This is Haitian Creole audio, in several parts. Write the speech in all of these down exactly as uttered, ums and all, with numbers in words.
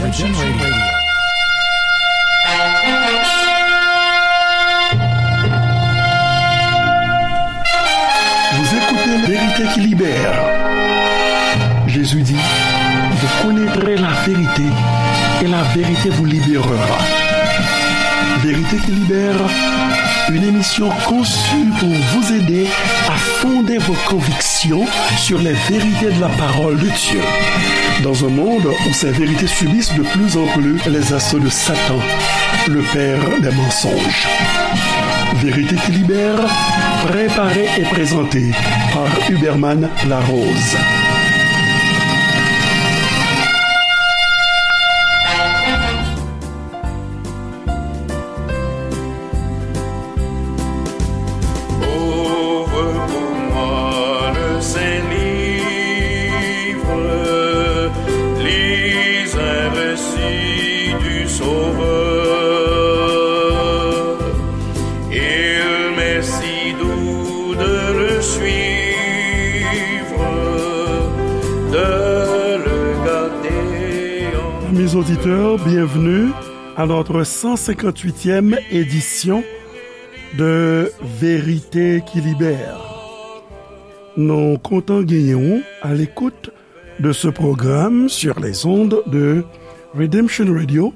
Redemption Radio. Vous écoutez Vérité qui libère. Jésus dit, vous connaîtrez la vérité et la vérité vous libérera. Vérité qui libère, une émission conçue pour vous aider à fonder vos convictions sur les vérités de la parole de Dieu. Dans un monde où ces vérités subissent de plus en plus les assauts de Satan, le père des mensonges. Vérité qui libère, préparée et présentée par Huberman Larose. Ouvre pour moi le Saint-Livre, lis un récit du Sauveur. Il m'est si doux de le suivre, de le garder en Amis auditeurs, bienvenue à notre cent cinquante-huitième édition de Vérité qui Libère. Nou kontan genyen w à l'écoute de ce programme sur les ondes de Redemption Radio,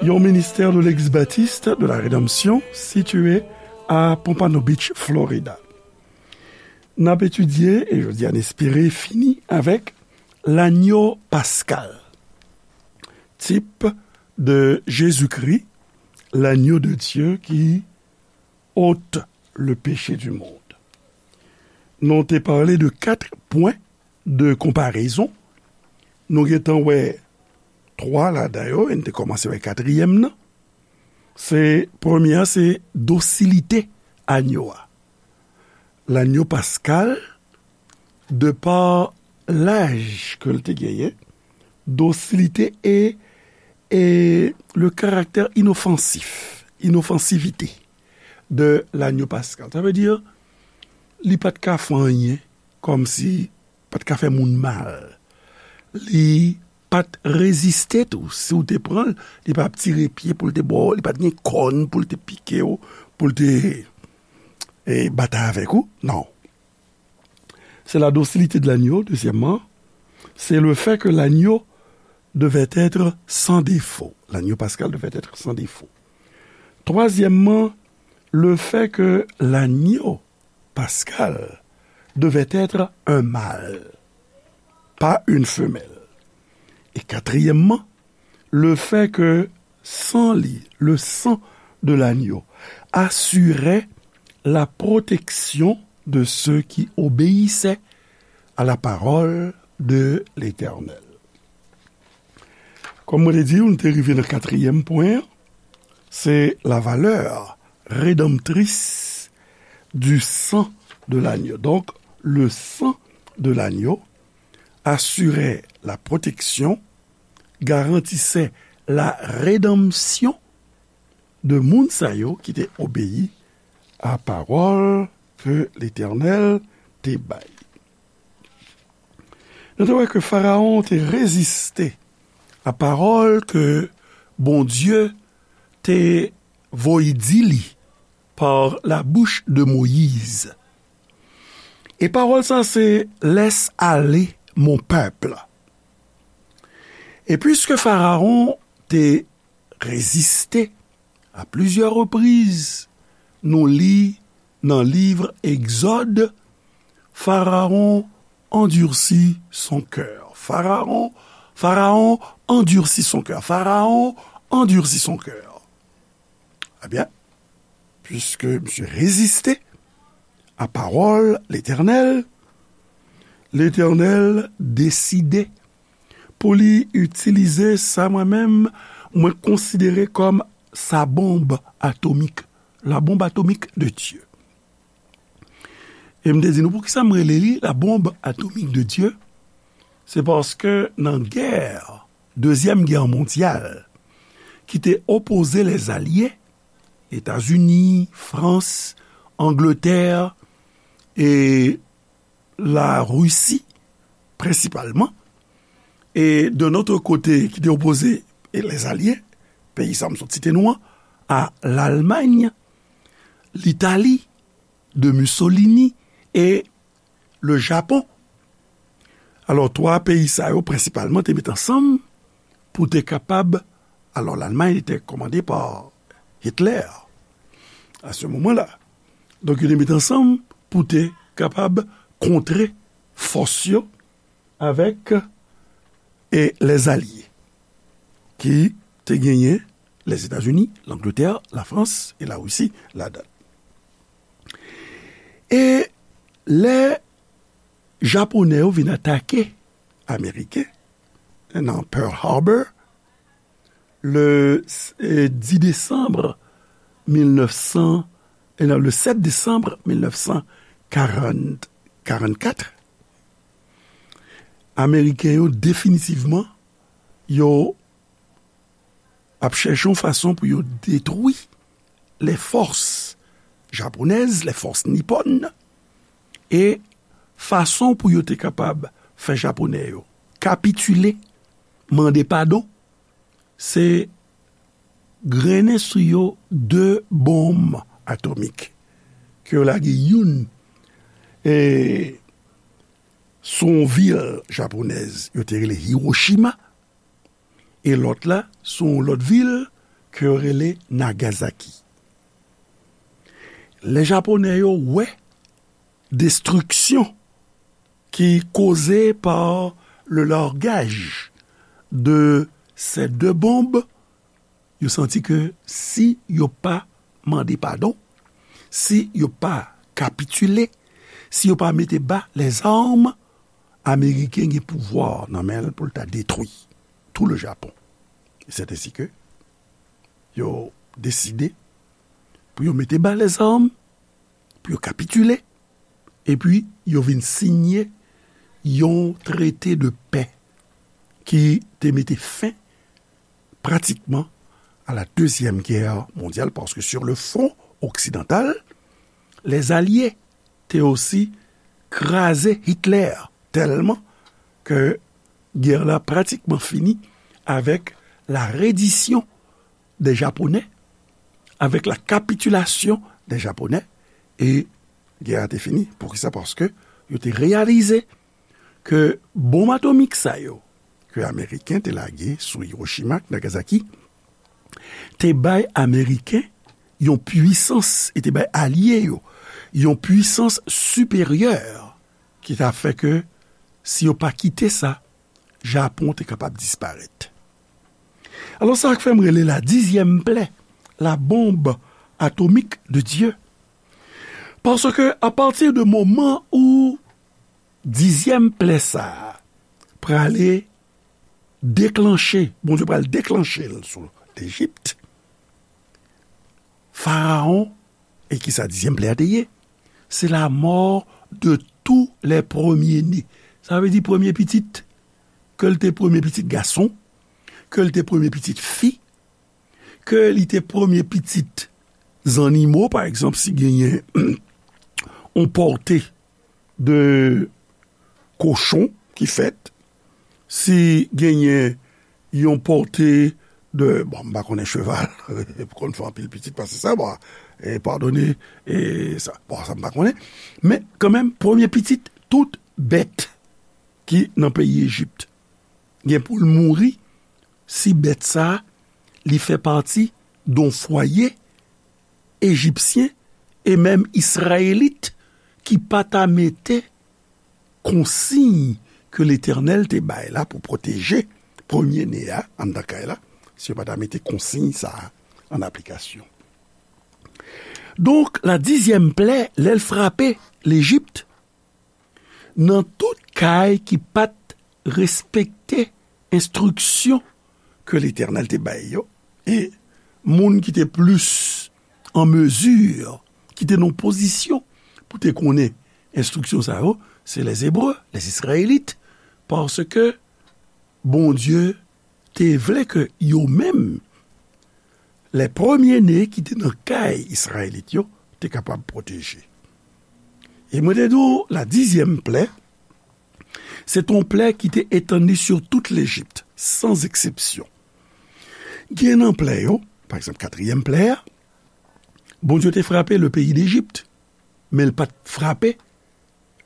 yon ministère de l'Église baptiste de la Rédemption situé à Pompano Beach, Florida. N ap etidye, e jodi a n espere fini avèk lanyo paskal, type de Jésus-Christ, l'agneau de Dieu qui ôte le péché du monde. Nou te pale de kat pwen de konparezon. Nou gentan wè twa ladan yo, e n te kòmanse wè katriyèm nan. Se, premye a, se dosilite anyo a. Lanyo paskal, de pa laj ke l te genyen, dosilite e, e le karaktè inofansif, inofansivite de lanyo paskal. Sa vle di, li pa t ka fè anyen, kòmsi pa t ka fè moun mal. Li pa t reziste tou. Si w te pran l, li pa t ap tire pye pou l te ba w, li pa t gen kòn pou l te pike w, pou l te, e, batay avèk ou. Non. C'est la docilité de l'agneau, deuxièmement. C'est le fait que l'agneau devait être sans défaut. L'agneau pascal devait être sans défaut. Troisièmement, le fait que l'agneau pascal devait être un mâle, pas une femelle. Et quatrièmement, le fait que sang li, le sang de l'agneau, assurait la protection de ceux qui obéissaient à la parole de l'Éternel. Kòm mwen te di w, nou te rive nan katriyèm pwen an, se la valeur rédemptrice du sang de l'agneau. Donc, le sang de l'agneau assurait la protection, garantissait la rédemption de moun sa yo ki te obeyi a pawòl ke Letènèl te bay. Nou te wè ke Farawon te reziste a pawòl ke Bondye te voye di li par la bouche de Moïse. E pawòl sa se, laisse aller mon peuple. E piske Farawon te reziste a plizyè repriz, nou li nan liv Egzòd, Pharaon endurcit son cœur. Pharaon, Pharaon endurcit son cœur. Pharaon endurcit son cœur. Ebyen, piske misye reziste a pawòl Letènèl, Letènèl deside pou li itilize sa mwen menm, mwen konsidere kòm sa bonb atomik, la bombe atomique de Dieu. E m te di nou, poukisa m rele li la bombe atomique de Dieu? Se paske nan gè, dezyèm gè mondyal, ki te opoze lèzalye, Etazini, Frans, Angletè e Larisi, prensipalman, E de notre côté, ki te opoze, e lèzalye, peyi sa m sot site nou an, a Lalmany, Litali, de Mussolini e le Japon. Alò, twa peyi sa yo prensipalman te met ansanm pou te kapab, alò, Lalmany te kòmande pa Hitler a se moman la. Donk, yo te met ansanm pou te kapab kontre fòs yo avèk e lèzalye ki te genyen Lèzetazini, Langletè, Lafrans e Larisi ladan. E lè Japonè yo vin atake Ameriken nan Pearl Harbor, le eh, dix décembre mil nèf san, eh, non, le sept décembre mil nèf san karant, karant kat, Ameriken yo definitivman yo ap chèche yon fason pou yo detwi les forces japonaises, les forces nippones, e fason pou yo te kapab fè Japonè yo kapitile, mande padon, se grennen sou yo de bonm atomik ke yo lage youn e sou yon vil japonèz yo te rele Hiroshima, e lòt la sou yon lòt vil ke yo rele Nagasaki. Lè Japonè yo wè destriksyon ki koze pa le largaj de ces deux bombes, yo santi ke si yo pa mande padon, si yo pa kapitile, si yo pa mete ba lèzam, Ameriken gen pouvwa nan men l pou l ta detwi tout le Japon. E c'est ainsi que yo deside pou yo mete ba lèzam, pou yo kapitile, epi yo vin siyen yon trete de pè ki te mete fen pratikman à la Deuxième Guerre mondiale, paske sur le front occidental, les alliés te osi kraze Hitler tèlman ke gè la pratikman fini avec la reddition des Japonais, avec la capitulation des Japonais, e gè a te fini. Poukisa? Paske yo te reyalize ke bonm atomik sa yo ke Ameriken te lage sou Hiroshima ak Nagasaki te bay Ameriken yon pwisans, e te bay alye yo yon pwisans siperyè ki ta fè ke si yo pa kite sa, Japon te kapab disparèt. Alò, sa k fè m rele la dizyèm plè, la bombe atomique de Dieu. Paske, apati de moman ou dizyèm plè sa a prale deklanche, Bondye pral deklanche l sou Lejip, Farawon, e ki sa dizyèm plè a te ye? C'est la mort de tous les premiers-nés. Sa vle di premye pitit, ke l te premye pitit gason, ke l te premye pitit fi, ke li te premye pitit zannimo, pa egzanp, si genyen yon pòte de kochon ki fèt, si genyen yon pòte de, bon, m pa konnen cheval, konn fè anpil pitit pase sa, bon, e padone, e sa, bon, sa m pa konnen. Men, kanmenm, premye pitit tout bèt ki nan peyi Ejip gen pou l mouri si bèt sa a, li fè pati d on fwaye ejipsyen e menm izrayelit ki pa ta mete konsiy ke Letènèl te bay la pou pwoteje premye ne a anndan kay la, si yo pa ta mete konsiy sa a an aplikasyon. Donk, la dizyèm plè, lè l frape Lejip, nan tout kay ki pa t respekte enstriksyon ke Letènèl te bay yo, e moun ki te plis an mezi, ki te nan pozisyon pou te konnen enstriksyon sa yo, se lèzebre, lèzizrayelit, paske Bondye te vle ke yo menm, lè premye ne ki te nan kay Izrayelit yo, te kapab pwoteje. E mwen te di w, la dizyèm plè, Se te yon plè ki te etann li sou tout Lejip, san eksepsyon. Gen nan plè yo, pa egzanp, katriyèm plè a, Bondye te frape le peyi Dejip, men l pa t frape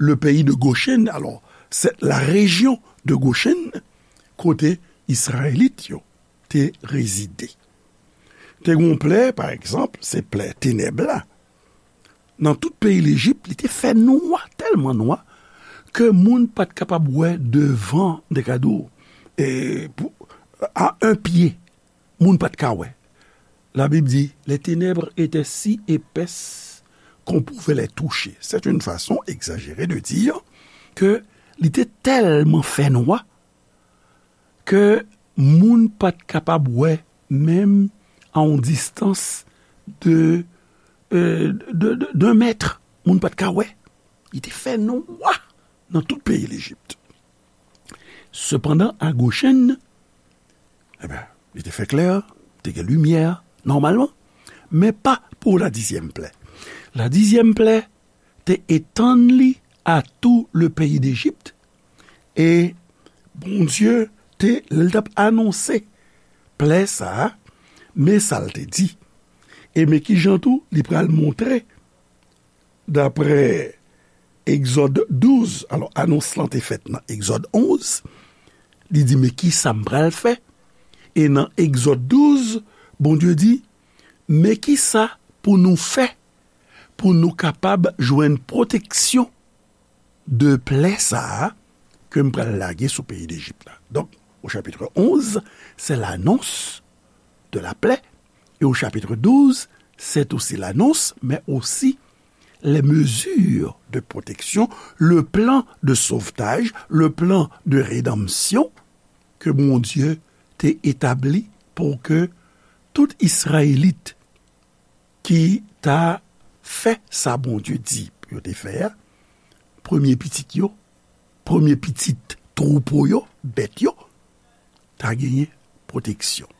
le peyi de Gochen. Alò, se la rejyon de Gochen, kote Izrayelit yo te rezide. Te gen yon plè, pa egzanp, se plè tenèb la. Nan tout peyi Lejip, li te fè nwa, tèlman nwa, ke moun pa t kapab wè devan, de ka di w, e, pou, a un pied, moun pa t ka wè. La Bible dit, les ténèbres étaient si épaisses qu'on pouvait les toucher. C'est une façon exagérée de dire que li te tèlman fè nwa ke moun pa t kapab wè, menm a yon distans de, euh, de, de, d'un mètre, moun pa t ka wè. Li te fè nwa nan tout peyi Lejip. Sepandan, a Gochen, ebyen, li te fè klè, te gen limyè, nòmalman, men pa pou la dizyèm plè. La dizyèm plè te etann li a tout le pays d'Égypte, e Bondye te, lè l t ap anonse plè sa a, men sa l te di. E men kijan tou li pral montre, daprè Egzòd douz, alò, anons lan te fèt nan Egzòd onz, li di, men kisa m pral fè? E nan Egzòd douz, Bondye di, men kisa pou nou fè pou nou kapab jwenn pwoteksyon de plè sa a ke m pral lage sou peyi Dejip la. Donk, au chapitre onze, c'est l'annonce de la plaie, et au chapitre douze, c'est aussi l'annonce, mais aussi les mesures de protection, le plan de sauvetage, le plan de rédemption ke Bondye te etabli pou ke tout Izrayelit ki ta fè sa Bondye di pou yo te fè a, premye pitit yo, premye pitit twoupo yo, bèt yo, ta genyen pwoteksyon.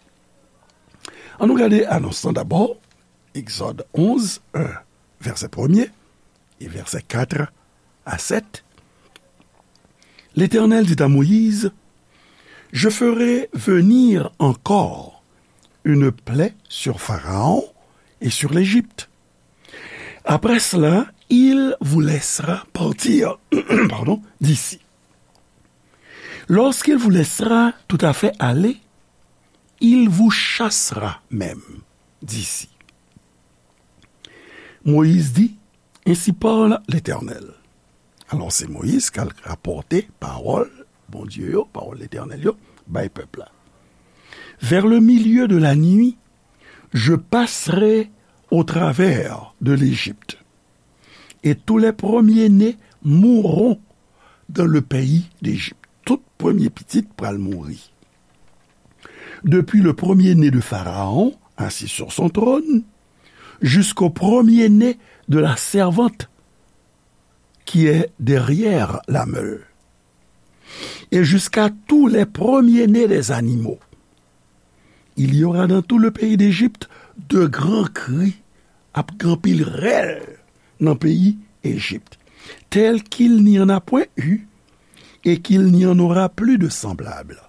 Ann nou gade anons lan dabò, Egzòd onz, un, vèsè premye, e vèsè kat a sèt. L'Éternel dit à Moïse, je ferai venir encore une plaie sur Pharaon et sur l'Égypte. Après cela, il vous laissera partir, pardon, d'ici. Lorsqu'il vous laissera tout à fait aller, il vous chassera même d'ici. Moïse dit, ainsi parle l'Éternel. Alò, se Moyiz k al rapòte pawòl Bondye yo, pawòl Letènèl yo, bay pèp la. Vers le milieu de la nuit, je passerai au travers de l'Égypte, et tous les premiers-nés mourront dans le pays d'Égypte. Tout premye pitit pral mouri. Depuis le premier-né de Pharaon, assis sur son trône, jusqu'au premier-né de la servante qui est derrière la meule, et jusqu'à tous les premiers-nés des animaux. Il y aura dans tout le pays d'Égypte de grands cris, ap gen anpil rèl nan peyi Ejip, tel qu'il n'y en a point eu, et qu'il n'y en aura plus de semblable.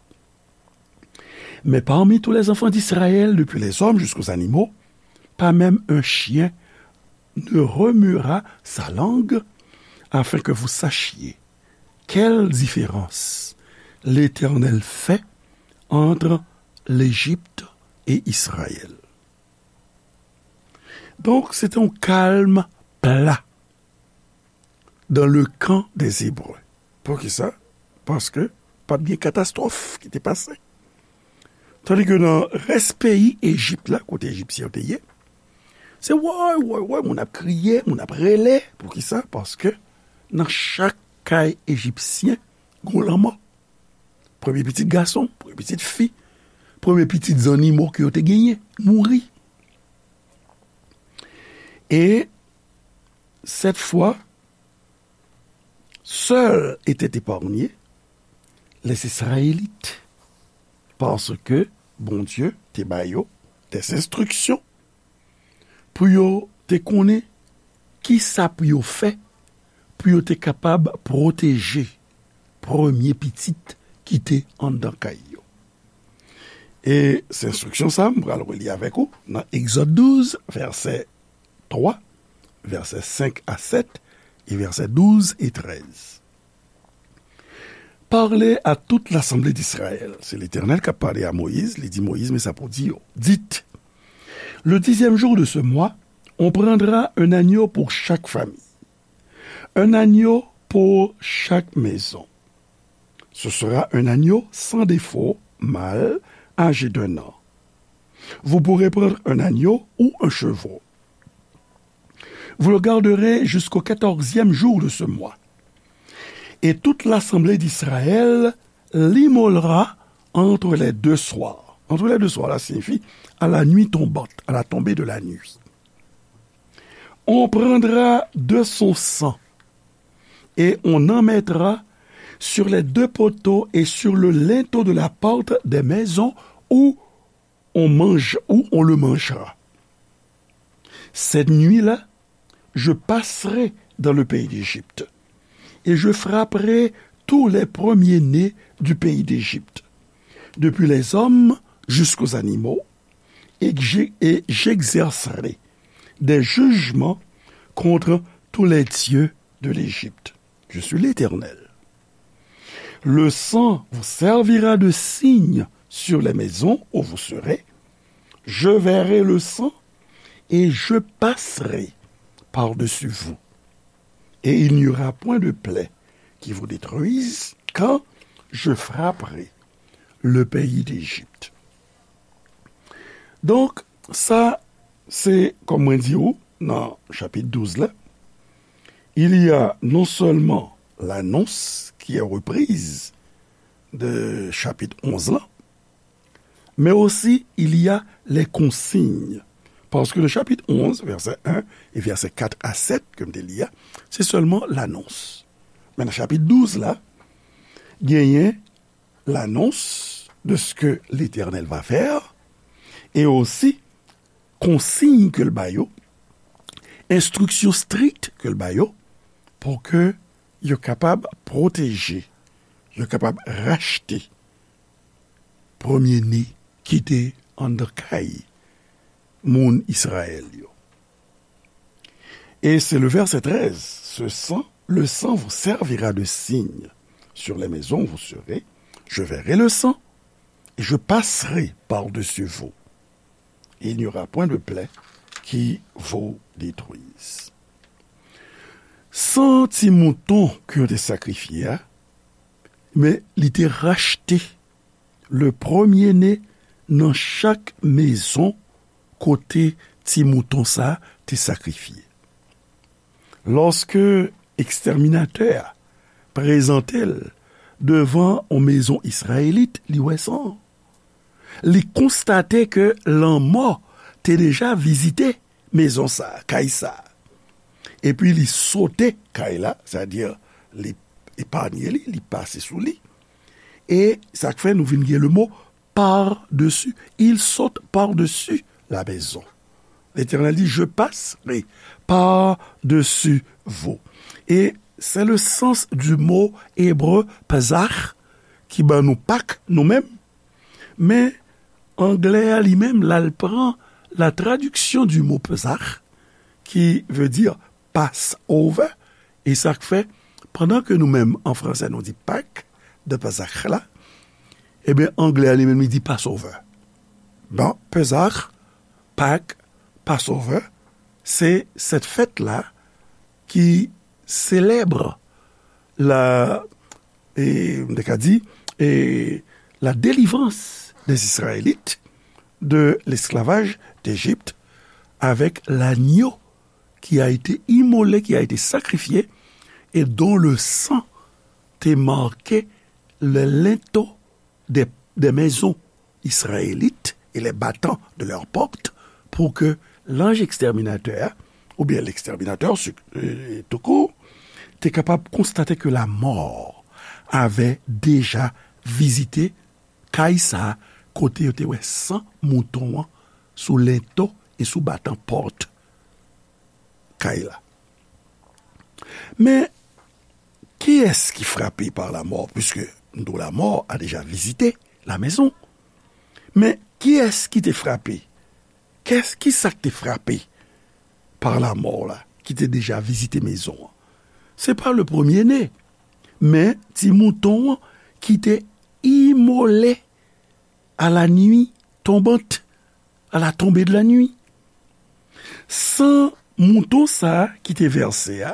Mais parmi tous les enfants d'Israël, depuis les hommes jusqu'aux animaux, pas même un chien ne remuera sa langue, afin que vous sachiez quelle différence l'Éternel fait entre l'Égypte et Israël. Donk, se te yon kalm pla dans le camp des Hébreux. Poukisa? Paske pa t gen katastwòf ki te pase. Tandis que nan rès peyi Ejip la, kote Ejipsyen yo te ye, se woy, woy, woy, moun ap kriye, moun ap rele. Poukisa? Paske nan chak kay Ejipsyen, gon lanmò. Premye pitit gason, premye pitit fi, premye pitit zannimo ke yo te genyen, mouri. Et cette fois, seuls étaient épargnés les Israélites, parce que Bondye te ba yo des instructions pou yo te konnen ki sa pou yo fè pou yo te kapab pwoteje premye pitit ki te anndan kay yo. E se enstriksyon sa a, m pral reli avèk ou nan Egzòd douz, vèsè twa, vèsè senk a sèt, e vèsè douz e trèz. Parlez à toute l'assemblée d'Israël. Se Letènèl k ap pale a Moyiz. Li di Moyiz, men sa pou di yo. Dites, le dixième jour de ce mois, on prendra un agneau pour chaque famille, un agneau pour chaque maison. Ce sera un agneau sans défaut, mâle, âgé d'un an. Vous pourrez prendre un agneau ou un chevreau. Vous le garderez jusqu'au quatorzième jour de ce mois. Et toute l'assemblée d'Israël l'immolera entre les deux soirs. Entre les deux soirs, là signifie à la nuit tombante, à la tombée de la nuit. On prendra de son sang et on en mettra sur les deux poteaux et sur le linteau de la porte des maisons où on mange, où on le mangera. Cette nuit-là, je passerai dans le pays d'Égypte, et je frapperai tous les premiers-nés du pays d'Égypte, depuis les hommes jusqu'aux animaux, et que j'ai- et j'exercerai des jugements contre tous les dieux de l'Égypte. Je suis l'Éternel. Le sang vous servira de signe sur les maisons où vous serez. Je verrai le sang et je passerai par-dessus vous. Et il n'y aura point de plaie qui vous détruise quand je frapperai le pays d'Égypte. Donk, sa, se, kòm mwen di ou, nan chapit douz la, il y a non seulement l'annonce qui est reprise de chapitre onze là, mais aussi il y a les consignes. Parce que le chapitre onze, verset un et verset quatre à sept, ke m te li a, se sèlman lanons. Men nan chapit douz la, genyen l'annonce de ce que l'Éternel va faire, e osi konsiy ke l ba yo, enstriksyon strik ke l ba yo, pou ke yo kapab pwoteje, yo kapab rachte premye ne ki te anndan kay moun Izrayèl yo. Et c'est le verset treize, ce sang, le sang vous servira de signe sur les maisons où vous serez, je verrai le sang, et je passerai par-dessus vous, et il n'y aura point de plaie qui vous détruise. San ti mouton ke yo te sakrifye a, men li te rachte le premye ne nan chak mezon kote ti mouton sa a te sakrifye. Lòske ekstèminatè a prezante l devan yon mezon izrayelit, li wè san an. Li konstate ke lanmò te deja vizite mezon sa a, kay sa a. Epi li sote kay la, sètadi li epanye li, li pase sou li. E sa k fè nou vin gen le mo par-dessus. Il saute par-dessus la maison. L'Éternel dit, je passerai par-dessus vous. Et c'est le sens du mot hébreu Pesach, ki ban nou Pak, nou menm. Men, anglè a li menm, l al pran la traduction du mot Pesach, qui veut dire Passover, e sa k fè, pandan ke nou menm, an fransè, nou di Pak, de Pesach la, ebyen, anglè a li menm, li di Passover. Bon, Pesach, Pak, Passover, se cette fête-là qui célèbre la, e, m te ka di, e, la délivrance des Israélites de l'esclavage d'Égypte avec l'agneau qui a été immolé, qui a été sacrifié, et dont le sang te marquait les linteaux des, des maisons israélites et les battants de leurs portes, pour que l'ange exterminateur, ou bien l'exterminateur su- euh, tout court, te kapab konstate que la mort avait déjà visité kay sa a, kote yo te wè san mouton an sou lento e sou batan pòt kay la. Men, Qui est-ce qui frappé par la mort? Puisque nous, la mort a déjà visité la maison. Men, kiyès ki te frape? Kès, ki sa k te frape pa lamò la, ki te deja vizite mezon an? Se pa le premier né, men ti mouton an ki te imole à la nuit tombante, à la tombée de la nuit. San mouton sa a ki te vèse a,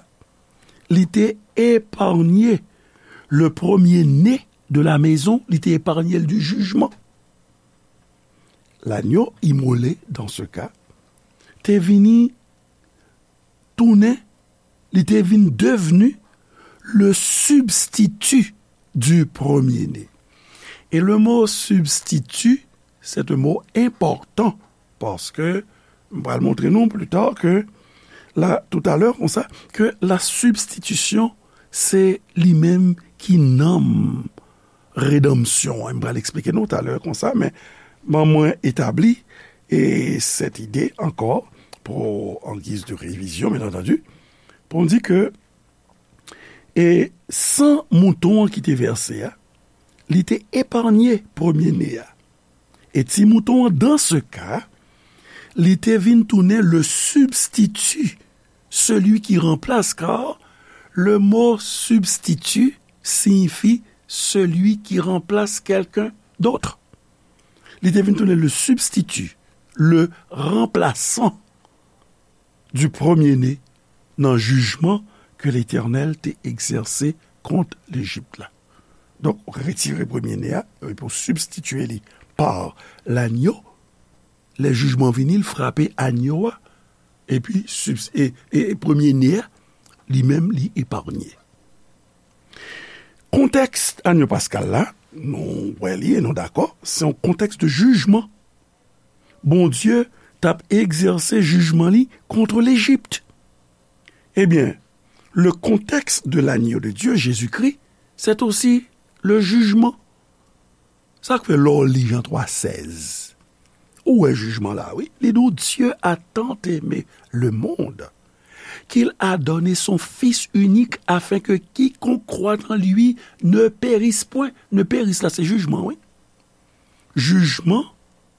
li te eparnye le premier né de la maison, li te eparnye l di jijman. L'agneau immolé, dans ce cas, te vini tounen, li te vin devni le substitut du premier-né. E le mo substitut, c'est un mot important, paske m pral montre nou pli ta ke la, toutalè, konsa, ke la sibstitisyon, se li menm ki nanm redanmsyon an. M pral eksplike nou talè konsa, men ban mwen etabli e sèt ide ankò pou, an giz de revizyon, byen antandi, pou m di ke, e san mouton an ki te vèse a, li te eparnye premye ne a. E ti mouton an, dans ce cas, li te vin tounen le substitut, celui qui remplace, car le mot substitut signifie celui qui remplace quelqu'un d'autre. Li te vin tounen le substitut, le remplaçant du premier-né nan jijman ke Letènèl te egzèse kont Lejip la. Donk, retire premye ne a, epi w sibstitye li pa lanyo. Lè jijman vini, l frape anyo a, epi sibs-, e, e, e premye ne a, li menm, li eparnye. Kontèks anyo paskal la, nou wè li e nou dakò, se yon kontèks de jijman. Bondye t ap egzèse jijman li kont Lejip. Ebyen, le contexte de l'agneau de Dieu, Jésus-Christ, c'est aussi le jugement. Sa k fè lè w li Jan twa sèz, ou wè jijman la, wi. Li di w, Dieu a tant aimé le monde qu'il a donné son Fils unique afin que quiconque croit en lui ne périsse point. Ne périsse la, se jijman, wi. Jijman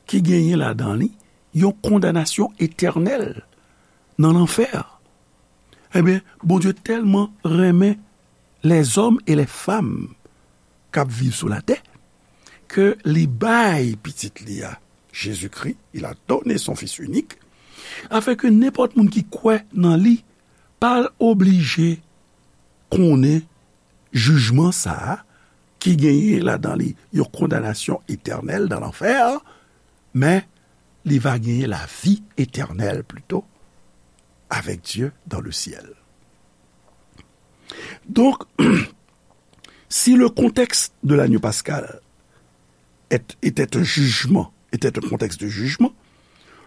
ki genyen ladan li yon kondanasyon etènèl nan lanfè. Ebyen, Bondye tèlman renmen lèzòm e lèfanm k ap viv sou latè, ke li bay pitit li a, Jezikri, il a donné son Fils unique, afin que nenpòt moun ki kwè nan li pa oblije konnen jijman sa a, ki genyen ladan li yon kondanasyon etènèl nan lanfè, men li va genyen lavi etènèl plito avec Dieu dans le ciel. Donc, si le contexte de l'agneau pascal est, était un jugement, était un contexte de jugement,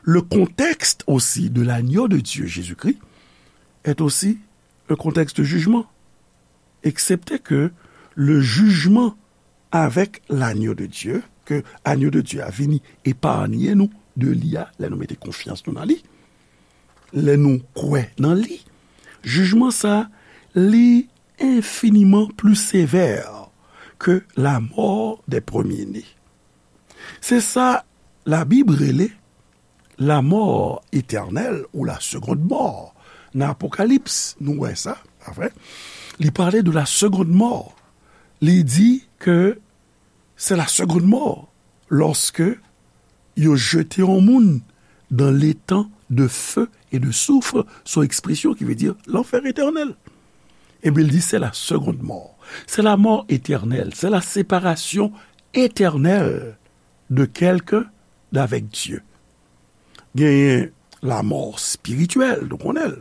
le contexte aussi de l'agneau de Dieu, Jésus-Christ, est aussi un contexte de jugement. Excepté que le jugement avec l'agneau de Dieu, ke agneau de Dieu a vini eparnye nou de li a, lè nou mete konfyans nou nan li, lè nou kwè nan li, jijman sa, li infiniment plus sévère que la mort des premiers-nés. Se sa Labib rele la mort éternelle ou la seconde mort. Nan Apokalips, nou wè sa, pa vre? Li pale de la seconde mort. Li di ke c'est la seconde mort lorsque yo jete yon moun dans l'étang de feu et de soufre, son ekspresyon ki vle di lanfè etènèl. Ebyen, li di, c'est la seconde mort. C'est la mort éternelle. C'est la séparation éternelle de quelqu'un d'avec Dieu. Genyen lamò espirityèl, nou konnen l.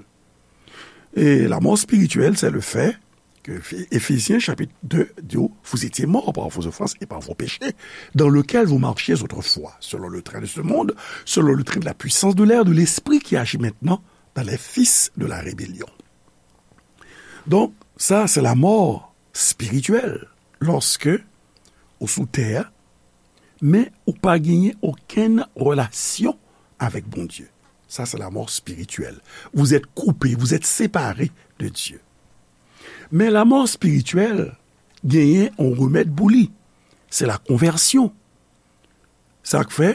E lamò espirityèl, c'est le fait que Éphésiens chapitre deux dit, vous étiez morts par vos offenses et par vos péchés, dans lequel vous marchiez autrefois, selon le train de ce monde, selon le train de la puissance de l'air, de l'esprit qui agit maintenant dans les fils de la rébellion. Donk, sa, se lamò espirityèl, lòske ou sou tè a, men ou pa genyen okenn relasyon avèk Bondye. Sa, se lamò espirityèl. Vous êtes coupé, vous êtes séparé de Dieu. Men lanmò espirityèl genyen yon remèd pou li. Se la konvèsyon. Sa k fè,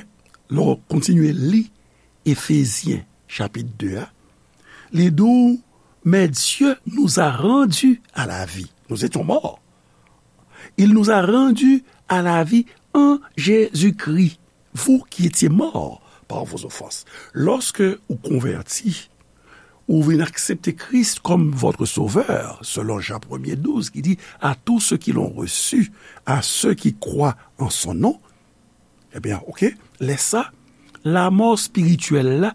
lè w kontinye li Efezyen chapit de a, li di w, mais Dieu nous a rendus à la vie. Nous étions morts. Il nous a rendus à la vie en Jésus-Christ. Vous qui étiez morts par vos offenses. Lòske ou konvèti, ou vin aksepte Kris kòm votre sovè, selon Jan premye douz ki di, à tous ceux qui l'ont reçu, à ceux qui croient en son nom, ebyen, oke, lè sa, lanmò espirityèl la,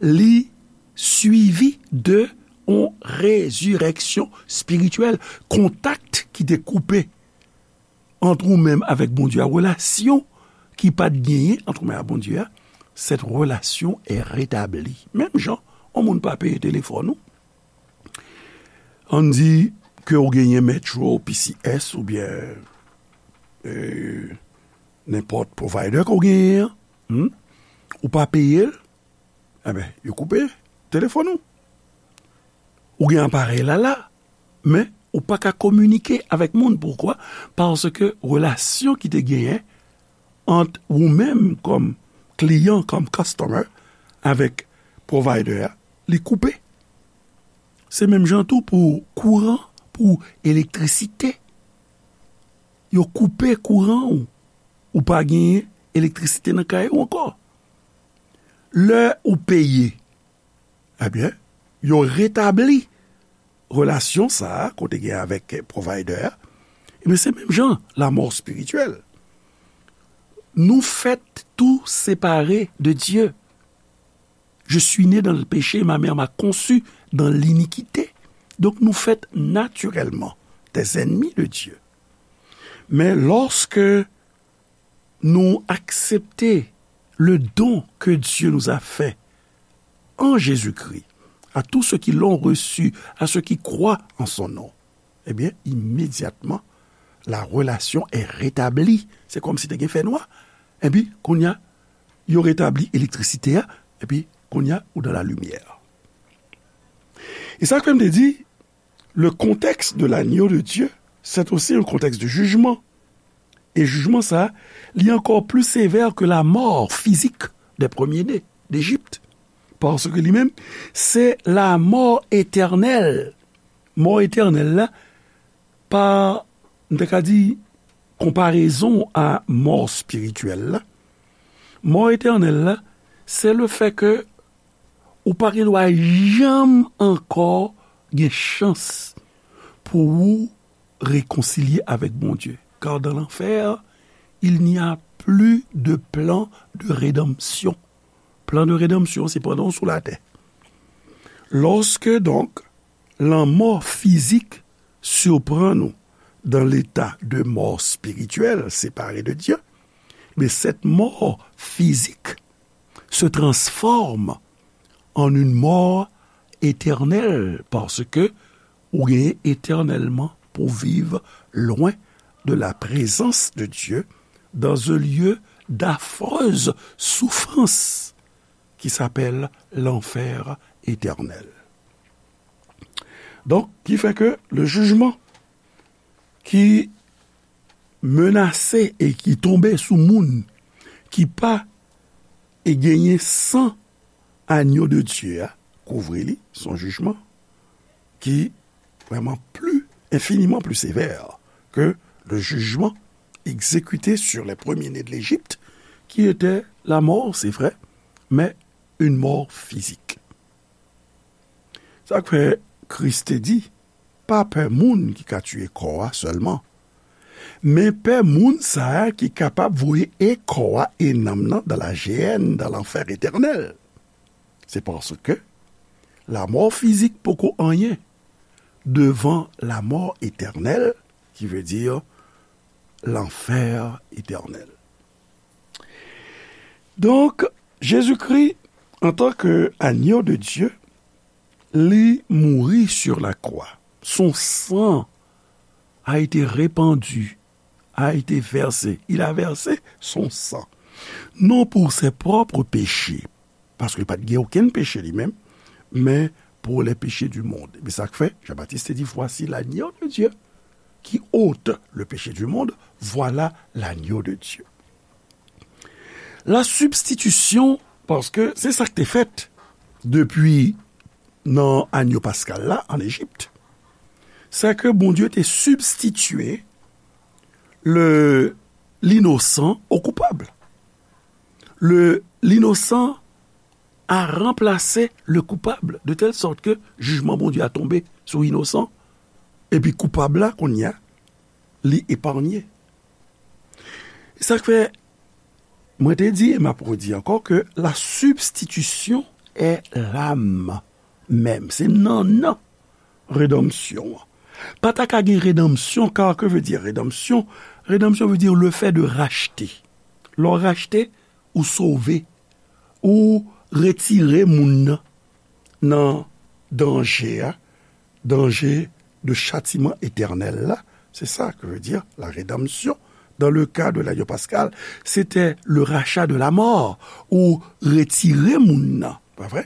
li swivi de yon rezirèksyon espirityèl, kontak ki te koupe ant ou menm avèk Bondye a, relasyon ki pa t genyen ant ou menm ak Bondye a, cette relation est rétablie. Menm jan, yon moun pa peye telefòn ou, ann di ke w genyen Metro, P C S oubyen, euh, nenpòt provider ke w genyen an, hmm? Ou pa peye l, enben, yo koupe telefòn ou. Ou gen aparèy la la, men ou pa ka kominike avèk moun. Poukwa? Paske relasyon ki te genyen ant ou menm kòm kliyan, kòm customer, avèk provider a, li koupe. Se menm jan tou pou kouran, pou elektrisite. Yo koupe kouran ou. Ou pa genyen elektrisite nan kay ou ankò. Lè ou peye, ebyen, yo retabli relasyon sa a ke w te gen avèk provider a. Ebyen, se menm jan, lanmò espirityèl. Nou fèt tou separe de Dye. Je suis né dans le péché, ma mère m'a conçu dans l'iniquité. Donk, nou fèt natirèlman des ennemis de Dieu. Men lòske nou aksepte le don que Dieu nous a fait en Jésus-Christ, à tous ceux qui l'ont reçu, à ceux qui croient en son nom, ebyen, imedyatman, la relation est rétablie. Se kòmsi te gen fènwa. Epi, kounye a, yo retabli elektrisite a, epi, kounye a, ou dans la lumière. E sa k fè m te di, le contexte de l'agneau de Dieu, c'est aussi un contexte de jugement. E jijman sa, li ankò pli sevè ke lanmò fizik des premiers-nés d'Égypte. Paske li menm, se lanmò etènèl. Mò etènèl la, pa, m ta ka di, konparezon a mò espirityèl la. Mò etènèl la, se le fè ke ou pa gen dwa janm ankò gen chans pou ou rekonsilye avèk Bondye. Car dans l'enfer, il n'y a plus de plan de rédemption. Plan de rédemption, se pandan w sou latè. Lorsque donc la mort physique surprend nous dans l'état de mort spirituelle séparée de Dieu, mais cette mort physique se transforme en une mort éternelle, parce que ou genyen éternellement pou viv loin de la présence de Dieu dans un lieu d'affreuse souffrance qui s'appelle l'enfer éternel. Donk, ki fè ke le jijman ki menase e ki tonbe sou moun ki pa e genyen san agno de Dye a kouvri li, se yon jijman ki vrèman pli, enfiniman pli sevè ke le jijman egzekite sur les premiers-nés de l'Égypte, qui était la mort, c'est vrai, mais une mort physique. Sa k fè Kris te di, pa pè moun ki ka tiye kò a sèlman, men pè moun sa a ki kapab voye e kò a e nanm nan dans la géhenne, dans l'enfer éternel. C'est parce que la mort physique poko anyen devant la mort éternelle, qui veut dire l'enfer éternel. Donk, Jezikri, antanke agno de Dye, li mouri sur la croix. Son sang a été répandu, a été versé. Il a versé son sang. Non pour ses propres péchés, paske li pa t gen okenn peche li menm, men pour les péchés du monde. Ebyen, sa k fè, Jean-Baptiste te di, voici l'agneau de Dieu qui ôte le péché du monde, voilà l'agneau de Dieu. La substitution, paske se sa k te fèt depi nan agno paskal la an Ejip, se ke Bondye te sibstitye le, l'innocent au coupable. Le, l'innocent a remplacé le coupable, de telle sorte que jijman Bondye a tonbe sou inosan, epi koupab la, kounye a, li eparnye. Sa k fè, mwen te di, e m ap redi ankò, ke la substitution est l'âme même. Se nannan redanmsyon an. Pa ta ka gen redanmsyon, car que veut dire rédemption? Rédemption veut dire le fait de racheter. Lè w rachte, ou sove, ou retire moun nan nan danje a, danje de chatiman etènèl la. C'est ça que veut dire la rédemption. Dans le cas de l'agneau pascal, c'était le rachat de la mort, ou retire moun nan, pa vre?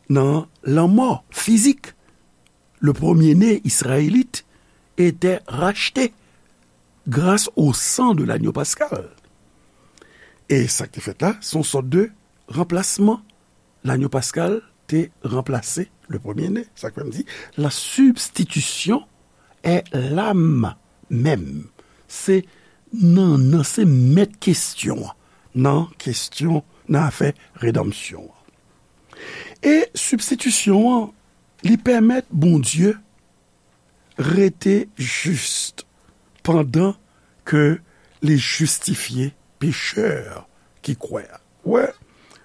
Nan lanmò fizik. Le premier-né israélite était racheté grâce au sang de l'agneau pascal. E sa k te fèt la, se yon sòt de ranplasman. L'agneau pascal te ranplase le premier-né. Sa k fè m di, la substitution est l'âme même. Se nannan, se mèt kesyon an nan kesyon, nan afè redanmsyon an. E sibstitisyon an, li pèmèt Bondye rete jis pandan ke li jistifye pechè ki kwè a. Wè,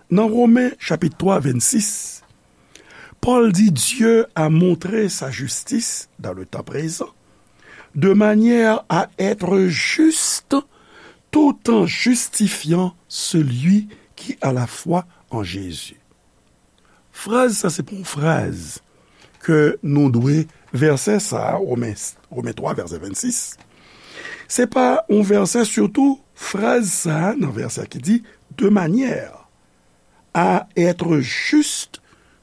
nan Women chapit twa, vennsis, Pòl di, Dieu a montré sa justice dans le temps présent, de manière à être juste tout en justifiant celui qui a la foi en Jésus. Fraz sa se pa yon fraz ke nou dwe, vèsè sa, Women, Women twa, vèsè vennsis. Se pa yon vèsè, sitou fraz sa nan vèsè ki di, de manière à être juste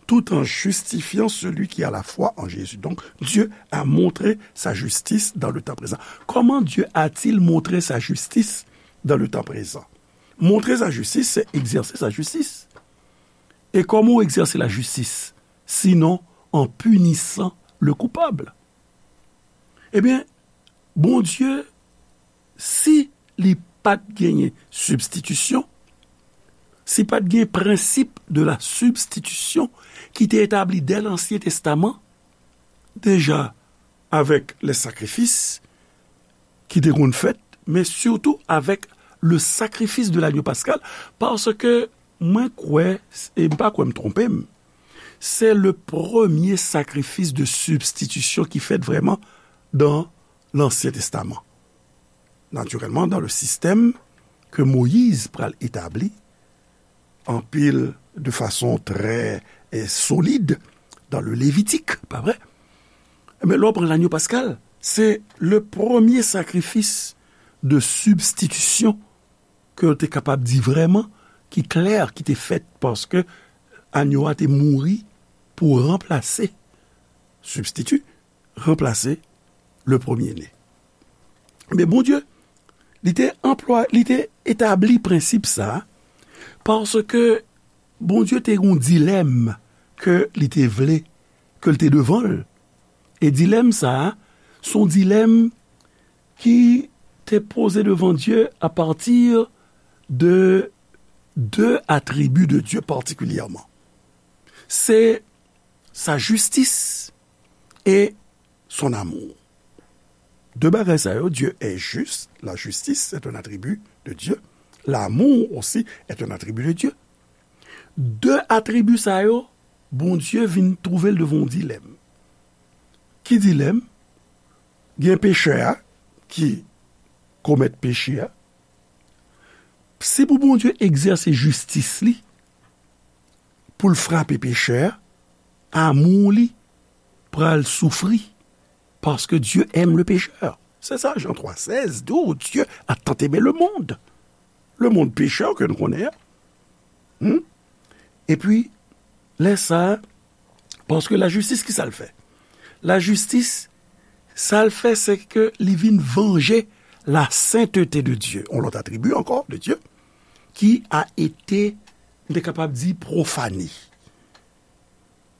tout en justifiant celui qui a la foi en Jésus. Donc, Dieu a montré sa justice dans le temps présent. Comment Dieu a-t-il montré sa justice dans le temps présent? Montre sa jistis, se egzèse sa jistis. E kòman w egzèse lajistis, sinon en punissant le coupable? Ebyen, Bondye, si li pa t genyen sibstitisyon, si pa t gen prensip de la substitution ki te etabli dè Lansyen Testaman, deja avèk lè sakrifis ki te konn fèt, men sitou avèk le sacrifice de l'agneau pascal, paske mwen kwè, e m pa kwè m twonpe m, se le premye sakrifis de sibstitisyon ki fèt vrèman dan Lansyen Testaman. Natirèlman, dan le sistèm ke Moyiz pral etabli, anpil, de fason trè, eh, solid dan le Levitik, pa vre? Ebyen, lè w pran lagno paskal, se le premye sakrifis de sibstitisyon ke yo te kapab di vrèman, ki klè, ki te fèt, paske agno a te mouri pou ranplase, sibstiti, ranplase le premye-né. Men Bondye, li te anplwa-, li te etabli prensip sa, paske Bondye te gen yon dilèm ke li te vle, ke l te devan l. E dilèm sa, se yon dilèm ki te poze devan Dye apati de de atribi de Dye patikilyèman. Se sa jistis e son amour. De bagay sa yo, Dieu est juste, la justice est un attribut de Dieu, l'amour aussi est un attribut de Dieu. De atribi sa yo, Bondye vin twouve l devan yon dilèm. Ki dilèm? Gen pechè a ki komèt peche a. Si pou Bondye egzèse jistis li, pou l frape pechè a, amou li pral soufri, paske Dieu aime le pécheur. Se sa, Jan twa sèz di w, Dieu a tant aimé le monde. Le monde pécheur ke nou konnen an. Hmm? Epi, lè sa a, Paske lajistis, ki sa l fè? Lajistis, sa l fè, se ke li vin vanje la sainteté de Dieu, yon lòt atribi ankò de Dye, qui a été, m te kapab di, profané.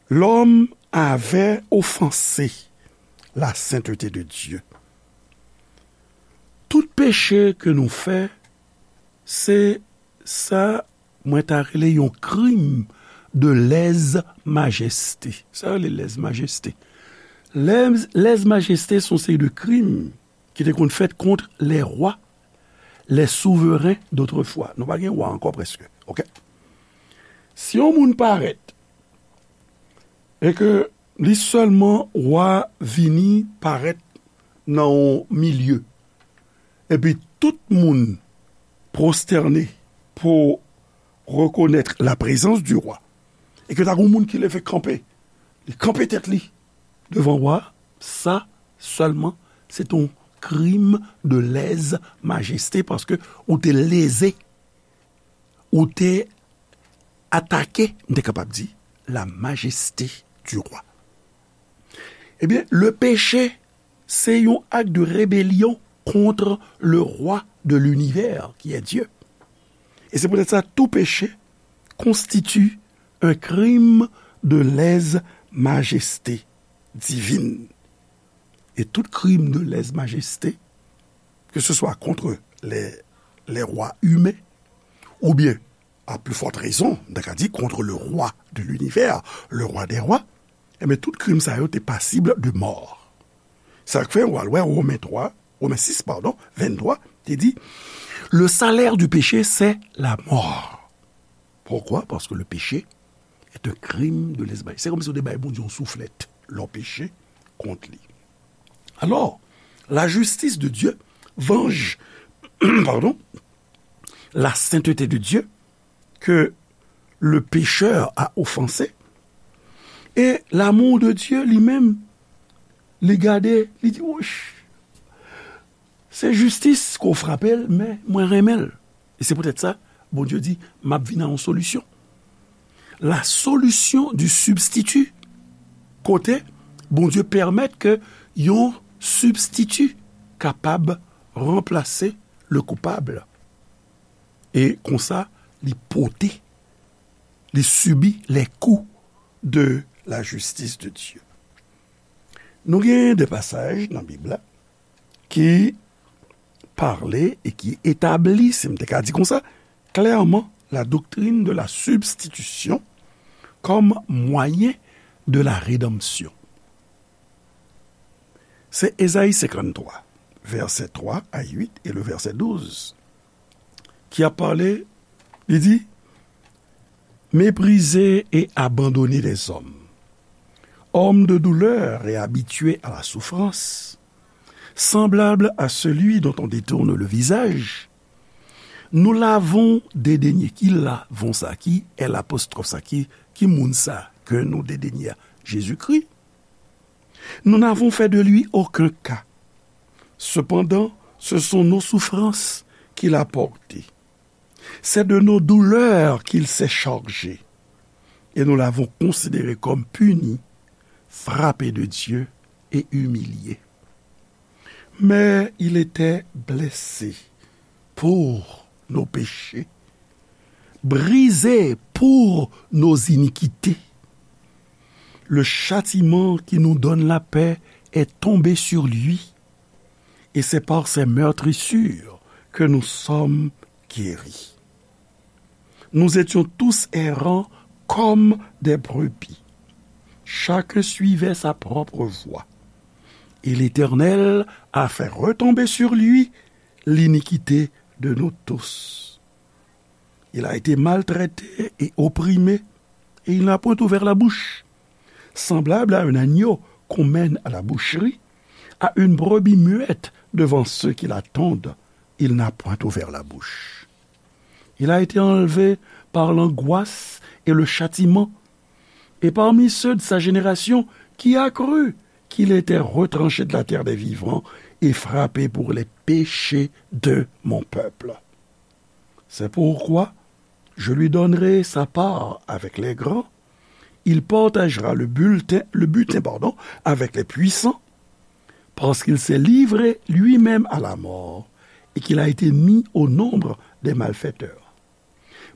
L'homme avait offensé la sainteté de Dieu. Tout peche ke nou fè, se sa mwen ta rele yon krim de lèzmajeste. Sa yo rele lèzmajeste. Lèz, lèzmajeste se yon seri de krim ki te konn fèt kont les rois, les souverains d'autrefois. Nou pa gen wa ankò prèske. Oke? Si yon moun parèt e ke li sèlman wa vini parèt nan yon milye, epi tout moun pwostène pou rekonèt la prezans di wa, e ke ta gen moun ki leve kanpe, li kanpe tèt li devan wa, sa sèlman se te yon krim de lèzmajeste, paske ou te leze, ou te atake, m te kapab di, la majeste di wa. Ebyen, le péché, c'est un acte de rébellion contre le roi de l'univers, qui est Dieu. Et c'est peut-être ça, tout péché constitue un crime de lèse-majesté divine. Et tout crime de lèse-majesté, que ce soit contre les, les rois humains, ou bien, à plus forte raison, m ta ka di, contre le roi de l'univers, le roi des rois, ebyen, tout krim sa yo te pasib de mò. Sa k fè, w al wè Women twa, Women sis, padon, venntwa, te di, le salaire du péché, c'est la mort. Pourquoi? Parce que le péché est un crime de lèse-majesté. Se kòmsi w te bay Bondye yon souflèt lè w peche kont li. Alors, la justice de Dieu venge, pardon, la sainteté de Dieu que le pécheur a offensé. Et l'amour de Dieu li menm, li gade, li di, woch, se jistis ke w frape l, men mwen renmen l. E se poutèt sa, Bondye di, m ap vin a yon solisyon. La solution du substitut. Kote Bondye pèmèt ke yon sibstiti kapab ranplase le coupable. E konsa, li pote, li sibi les coups de la justice de Dieu. Nou gen de pasaj nan Bib la ki pale e ki etabli, si m te ka di konsa, clairement la doctrine de la substitution comme moyen de la rédemption. Se Ezayi senkanntwa, vèsè twa a uit e le vèsè douz, ki ap pale, li di, méprisé et abandonné des hommes, homme de douleur et habitué à la souffrance, semblable à celui dont on détourne le visage, nous l'avons dédaigné. Ki l'avons sa? Ki L apostwòf sa? Ki, ki moun sa ke nou dedenye a? Jezikri. Nous n'avons fait de lui aucun cas. Cependant, ce sont nos souffrances qu'il a portées. C'est de nos douleurs qu'il s'est chargé. Et nous l'avons considéré comme puni, frappé de Dieu et humilié. Mais il était blessé pour nos péchés, brisé pour nos iniquités. Le châtiment qui nous donne la paix est tombé sur lui, et c'est par ses meurtrissures que nous sommes guéris. Nous étions tous errants comme des brebis. Chacun suivait sa propre voie. Et l'Éternel a fait retomber sur lui l'iniquité de nous tous. Il a été maltraité et opprimé, et il n'a point ouvert la bouche. Semblable à un agneau qu'on mène à la boucherie, à une brebis muette devant ceux qui la tondent, il n'a point ouvert la bouche. Il a été enlevé par l'angoisse et le châtiment, et parmi ceux de sa génération, qui a cru qu'il était retranché de la terre des vivants et frappé pour les péchés de mon peuple? C'est pourquoi je lui donnerai sa part avec les grands, Il partagera le bulletin, le butin, pardon, avec les puissants, parce qu'il s'est livré lui-même à la mort et qu'il a été mis au nombre des malfaiteurs,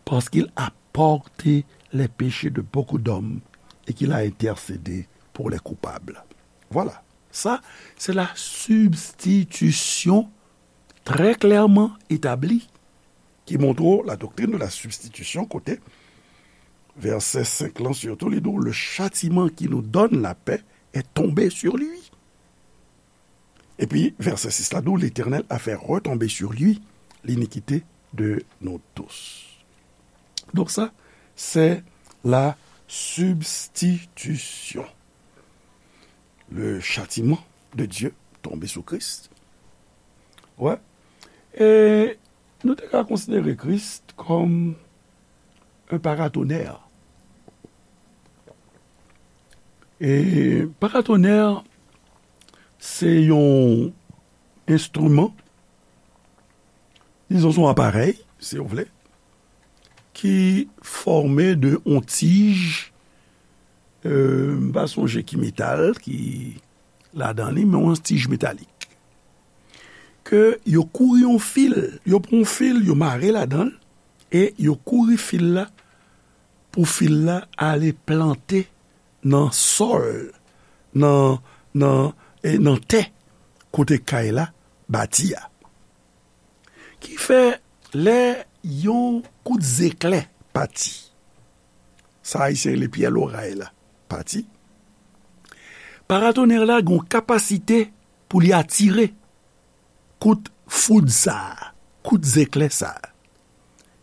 parce qu'il a porté les péchés de beaucoup d'hommes et qu'il a intercédé pour les coupables. Voilà. Ça, c'est la substitution très clairement établie qui montre la doctrine de la substitution, kote vèsè senk lan sitou, li di w, le châtiment qui nous donne la paix est tombé sur lui. Epi vèsè sis la di w, l'Éternel a fait retomber sur lui l'iniquité de nous tous. Donc ça, c'est la substitution. Le châtiment de Dieu tombé sou Kris. Wè. E nou te ka konsidere Kris kòm un paratonnerre. E paratonnerre, se yon enstriman, dizon, se yon aparèy, si w vle, ki fòme de yon tij, euh, m pa sonje ki metal ki ladan li, men yon tij metalik. Ke yo kouri yon fil, yo pran yon fil, yo mare ladan l, e yo kouri fil la, pou fil la ale plante nan sòl, nan, nan, e nan tè, kote kay la bati a. Ki fè, lè yon kout zeklè pati, sa Ayisyen rele pyè loray la, pati, paratonnerre la gen yon kapasite pou li atire kout foud sa a, kout zeklè sa a.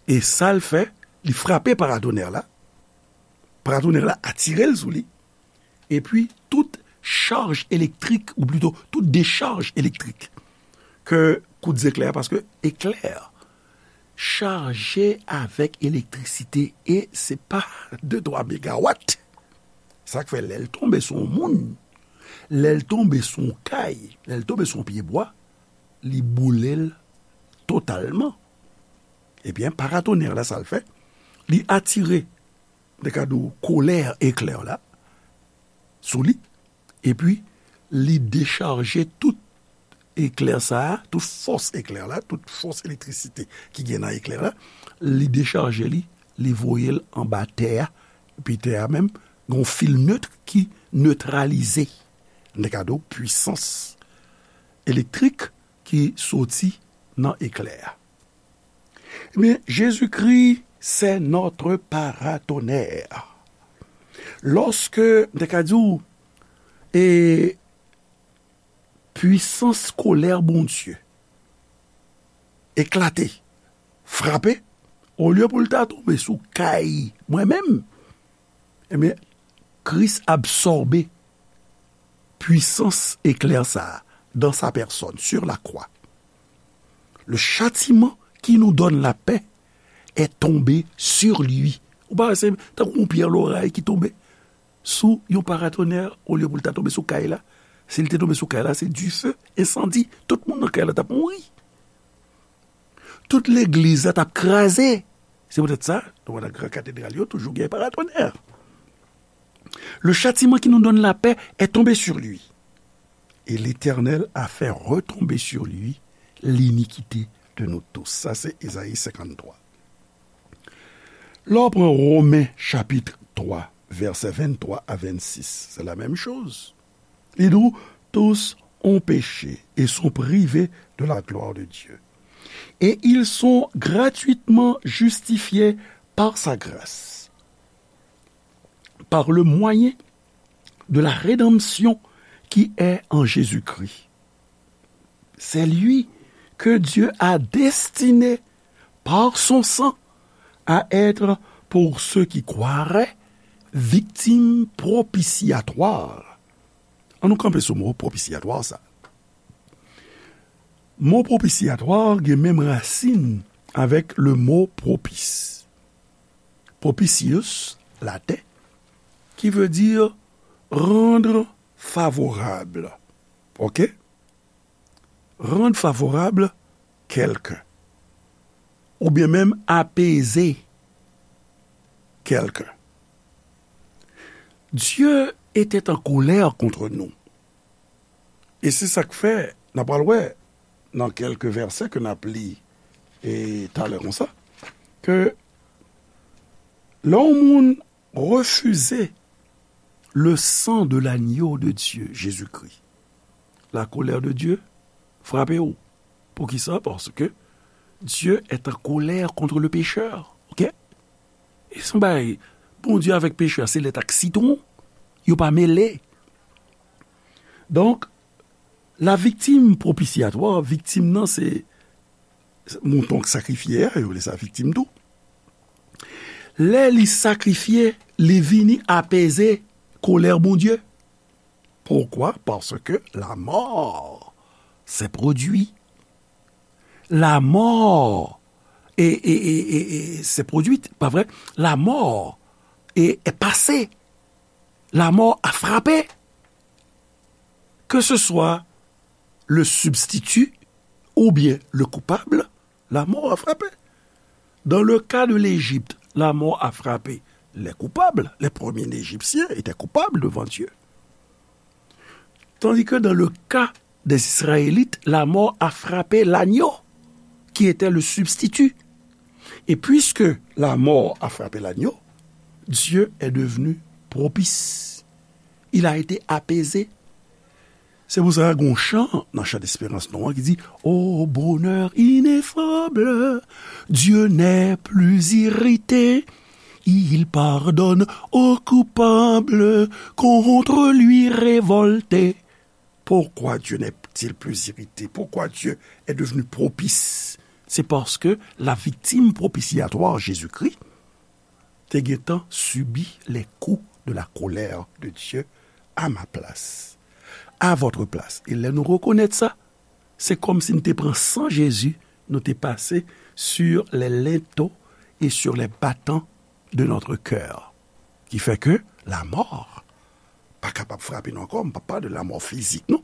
E sa l fè, li frape paratonnerre la, paratonnerre la atire l sou li, epi tout chaj elektrik, ou plito tout dechaj elektrik ke kout zeklè a, paske eklè chaje avèk elektrisite e se pa de twa megawat. Sa k fè lè l tonbe sou yon moun, lè l tonbe sou yon kay, lè l tonbe sou yon pye bwa, li boule l totalman. Ebyen, paratonnerre la, sa l fè, li atire, m te ka di w, kolè eklè la sou li, epi li dechaje tout eklè sa a, tout fòs eklè la, tout fòs elektrisite ki gen nan eklè la, li dechaje li, li voye l anba tè a, epi tè a menm, gen yon fil net ki netralize, m te ka di w, pwisans elektrik ki soti nan eklè a. Ebyen, Jezikri, c'est notre paratonnerre. Lòske, m te ka di w, e pwisans kolè Bondye eklate, frape, olye pou l ta tonbe sou kay mwen menm, ebyen, Kris absòbe pwisans eklè sa a dans sa personne, sur la croix. Le châtiment qui nous donne la paix est tombé sur lui. Ou pa wè se tankou yon pyè loray ki tonbe sou yon paratonnerre, olye pou l ta tonbe sou kay la. Si l te tonbe sou kay la, se dife, ensandi, tout moun nan kay la t ap mouri. Tout legliz la t ap kraze. Se poutèt sa, nan gran katedral yo, toujou gen paratonnerre. Le châtiment qui nous donne la paix est tombé sur lui. Et l'Éternel a fait retomber sur lui l'iniquité de nous tous. Sa se Ezayi senkanntwa. Lè w pran Women chapit twa, vèsè venntwa a vennsis, se la menm choz. Li di w, tous ont péché et sont privés de la gloire de Dieu. Et ils sont gratuitement justifiés par sa grâce, par le moyen de la rédemption qui est en Jésus-Christ. C'est lui que Dieu a destiné par son sang à être pour ceux qui croiraient victime propitiatoire. Ann nou kanpe sou mo propitiatoire sa. Mo propitiatoire gen menm rasin avèk le mo propice. Propitius, laten, qui veut dire rendre favorable. Ok? Rendre favorable quelqu'un. Oubyen menm apeze kèlken. Dieu était en colère contre nous. E se sa k fè, n a pral wè nan kèlke vèsè ke n ap li e talè konsa, ke lè yon moun refize le sang de l'agneau de Dieu, Jésus-Christ, la colère de Dieu frape w. Poukisa? Paske Dieu est en colère contre le pécheur. Ok? E se yon bagay, Bondye avèk pechè, se lèt ak sitwon. Yo pa mele. Donk, la victime propitiatoire, viktim nan se mouton k sakrifye a, yo rele sa viktim tou. Lè li sakrifye, li vini apeze kolè Bondye. Pourquoi? Parce que la mort s'est produite. La mort est, est, est, est, est- s'est produite, pas vrai? La mort est, est passée. La mort a frappé. Que ce soit le substitut ou bien le coupable, la mort a frappé. Dans le cas de l'Égypte, la mort a frappé les coupables. Les premiers Égyptiens étaient coupables devant Dieu. Tandis que dans le cas des Israélites, la mort a frappé l'agneau, qui était le substitut. Et puisque la mort a frappé l'agneau, Dieu est devenu propice. Il a été apaisé. Se pou sa gen yon chan nan chan desperans nou an ki di, Ô bonheur ineffable, Dieu n'est plus irrité, il pardonne aux coupables contre lui révoltés. Pourquoi Dieu n'est-il plus irrité? Pourquoi Dieu est devenu propice? C'est parce que la victime propitiatoire, Jésus-Christ, te gentan subi les coups de la colère de Dieu à ma place, à votre place. E lè nou rekonèt sa, se kòmsi nou te pran san Jezi, nou te pase sur les linteaux et sur les battants de notre cœur. Ki fè ke la mò pa kapab frape nou ankò. M pa pale de la mò fizik, non.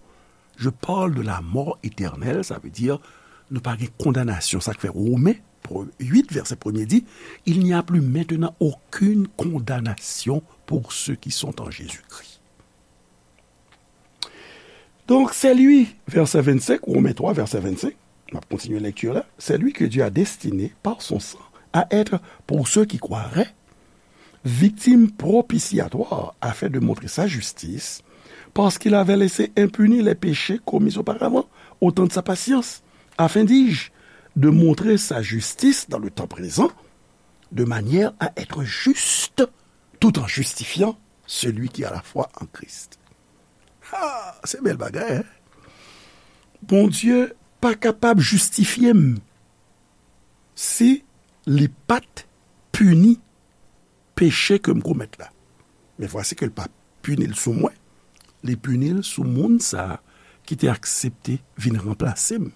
Je parle de la mort éternelle, ça veut dire nou pa gen kondanasyon. Sa k fè Women uit, vèsè premye di, Il n'y a plus maintenant aucune condamnation pour ceux qui sont en Jésus-Christ. Donc, c'est lui, verset vingt-cinq, Romains trois, verset vingt-cinq, on va continuer la lecture là, c'est lui que Dieu a destiné par son sang à être, pour ceux qui croiraient, victime propitiatoire afin de montrer sa justice, parce qu'il avait laissé impunis les péchés commis auparavant, au temps de sa patience, afin, dis-je, de montrer sa justice dans le temps présent, de manière à être juste, tout en justifiant celui qui a la foi en Christ. Ah, se bèl bagay, hein? Bondye pa kapab jistifye m si li pa t pini peche ke m komèt la. Men vwasi ke l pa pini l sou mwen, li pini l sou moun sa a ki te aksepte vin ranplase m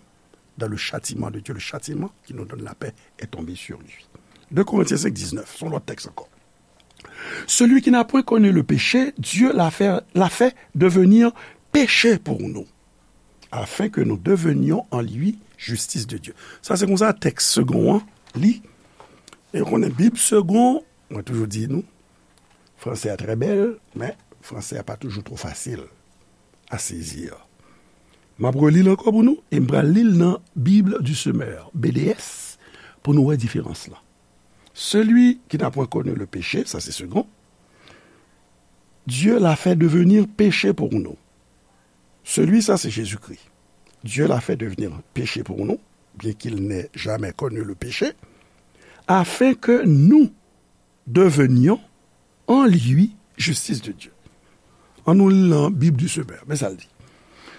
dans le châtiment de Dieu, le châtiment qui nous donne la paix est tombé sur lui. Deux Corinthiens cinq, dix-neuf, se yon lòt tèks ankò. Celui qui n'a point connu le péché, Dieu l'a fait, l'a fait devenir péché pour nous, afin que nous devenions en lui justice de Dieu. Sa se konsa tèks segon an li. E ou konnen Bib segon, mwen toujou di nou, franse a trè bèl, men franse a pa toujou twò fasil a sezi. M ap reli l ankò pou nou, e m pral li l nan Bible du Semeur, B D S, pou nou wè diferans lan. Celui qui n'a point connu le péché, sa se segon, Dieu l'a fait devenir péché pour nous. Celui, ça c'est Jésus-Christ. Dieu l'a fait devenir péché pour nous, bien qu'il n'ait jamais connu le péché, afin que nous devenions en lui justice de Dieu. An nou li nan Bib du Semeur, men sa l di.